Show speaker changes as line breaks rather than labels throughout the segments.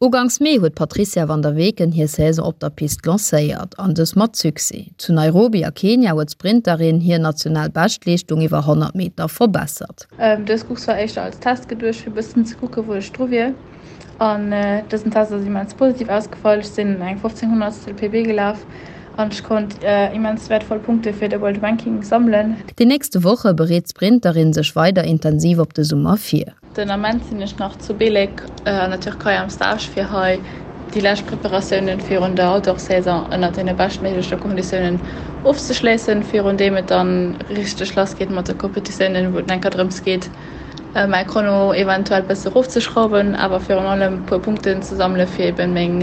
Uganks Mee huet d'Patrizia van der Weken hir Saison op der Pist lancéiert, an dës mat Succès. Zu Nairobi a Kenia huet d'Sprinterin hir national Beschtleeschtung iwwer 100 Meter verbessert.
Dës Course war éischter als Test geduecht, fir e bëssen ze kucken, wou ech dru wier. An dësen Test ass immens positiv ausgefall. Ech sinn eng 15 Honnertstel PB gelaf an ech konnt immens wäertvoll Punkte fir de World Ranking sammelen.
Déi nächste Woche bereet d'Sprinterin sech weider intensiv op de Summer vir.
Den Ament sinn ech nach zu Belek an der Türkei am Stage fir hei déi lescht Preparatiounen virun der Outdoor-Saison ënnert deene beschtméigleche Konditiounen ofzeschléissen, virun deem et dann richteg lass geet mat de Competitiounen, wou et enker drëms geet mäi Chrono eventuell bësse rofzeschrauwen, awer virun allem puer Punkten ze sammele fir eben meng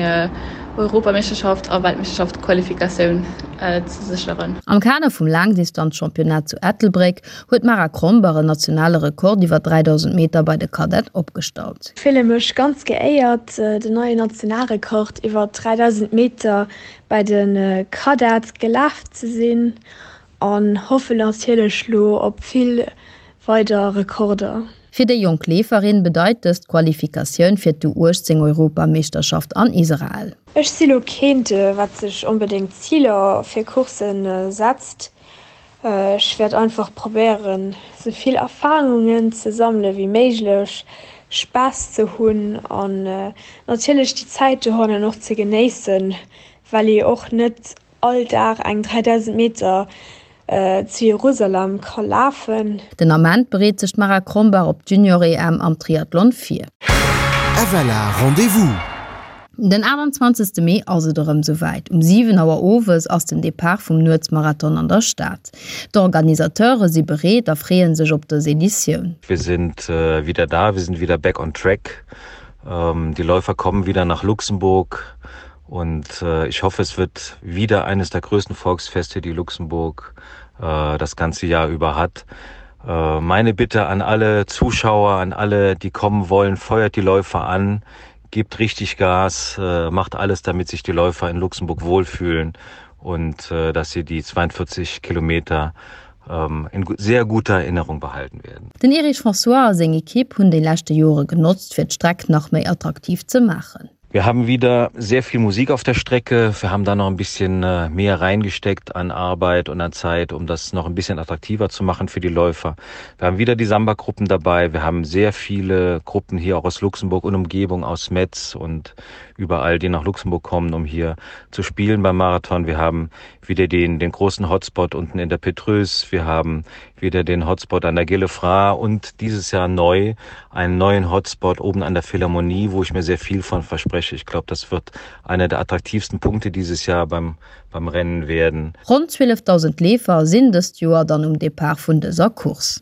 Europameeschterschaft a Weltmeeschterschaft Qualifikatioun ze sécheren.
Am Kader vum Laangdistanzchampionnat zu Ettelbréck huet d'Mara Krombach en nationale Rekord iwwer 3.000 Meter bei de Cadette opgestallt.
Ech fille mech ganz geéiert, den neien Nationalrekord iwwer 3.000 Meter bei de Cadette gelaf ze sinn an hoffen natierlech lo op vill weider Rekorder.
Fir déi jonk Leeferin bedeit dëst d'Qualifikatioun fir d'U18 Europameeschterschaft an Israel.
Ech si lo keent, wat sech onbedéngt Ziler fir Courssen setzt. Ech wäert einfach probéieren sou vill Erfahrungen ze sammele wéi méiglech, Spaass ze hunn an natierlech déi Zäit dohannen och ze genéissen, well ee och net all Dag eng 3000 Meter zu Jerusalem ka lafen.
Den Ament bereet sech d'Mara Krombach op d'Junior-EM am Triathlon vir.
FLA Rendez-vous!
Den 28. Mee ass et erëm souwäit, Um 7 Auer owes ass den Depart vum Nuetsmarathon an der Stad. D'Organisateure si bereet a freeë sech op dës Editioun.
Wir sind wieder da, wir sind wieder back on track. Die Läufer kommen wieder nach Luxemburg und ich hoffe, es wird wieder eines der größten Volksfeste, die Luxemburg das ganze Jahr über hat. Meine Bitte an alle Zuschauer, an alle, die kommen wollen, feuert die Läufer an, gebt richtig Gas, macht alles, damit sich die Läufer in Luxemburg wohlfühlen und dass sie die 42 Kilometer in sehr guter Erinnerung behalten werden.
Den Erich François a seng Ekipp hunn déi leschte Jore genotzt, fir d'Streck nach méi attraktiv ze maachen.
Wir haben wieder sehr viel Musik auf der Strecke. Wir haben da noch ein bisschen mehr reingesteckt an Arbeit und an Zeit, um das noch ein bisschen attraktiver zu machen für die Läufer. Wir haben wieder die Samba-Gruppen dabei. Wir haben sehr viele Gruppen hier auch aus Luxemburg und Umgebung, aus Metz und überall, die nach Luxemburg kommen, um hier zu spielen beim Marathon. Wir haben wieder den, den großen Hotspot unten in der Petrus. Wir haben wieder den Hotspot an der Gillefra und dieses Jahr neu einen neuen Hotspot oben an der Philharmonie, wo ich mir sehr viel von verspreche. Ich glaube, das wird einer der attraktivsten Punkte dieses Jahr beim, beim Rennen werden.
Ronn 12.000 Leefer sinn dëst Joer dann um Depart vun dëser Course.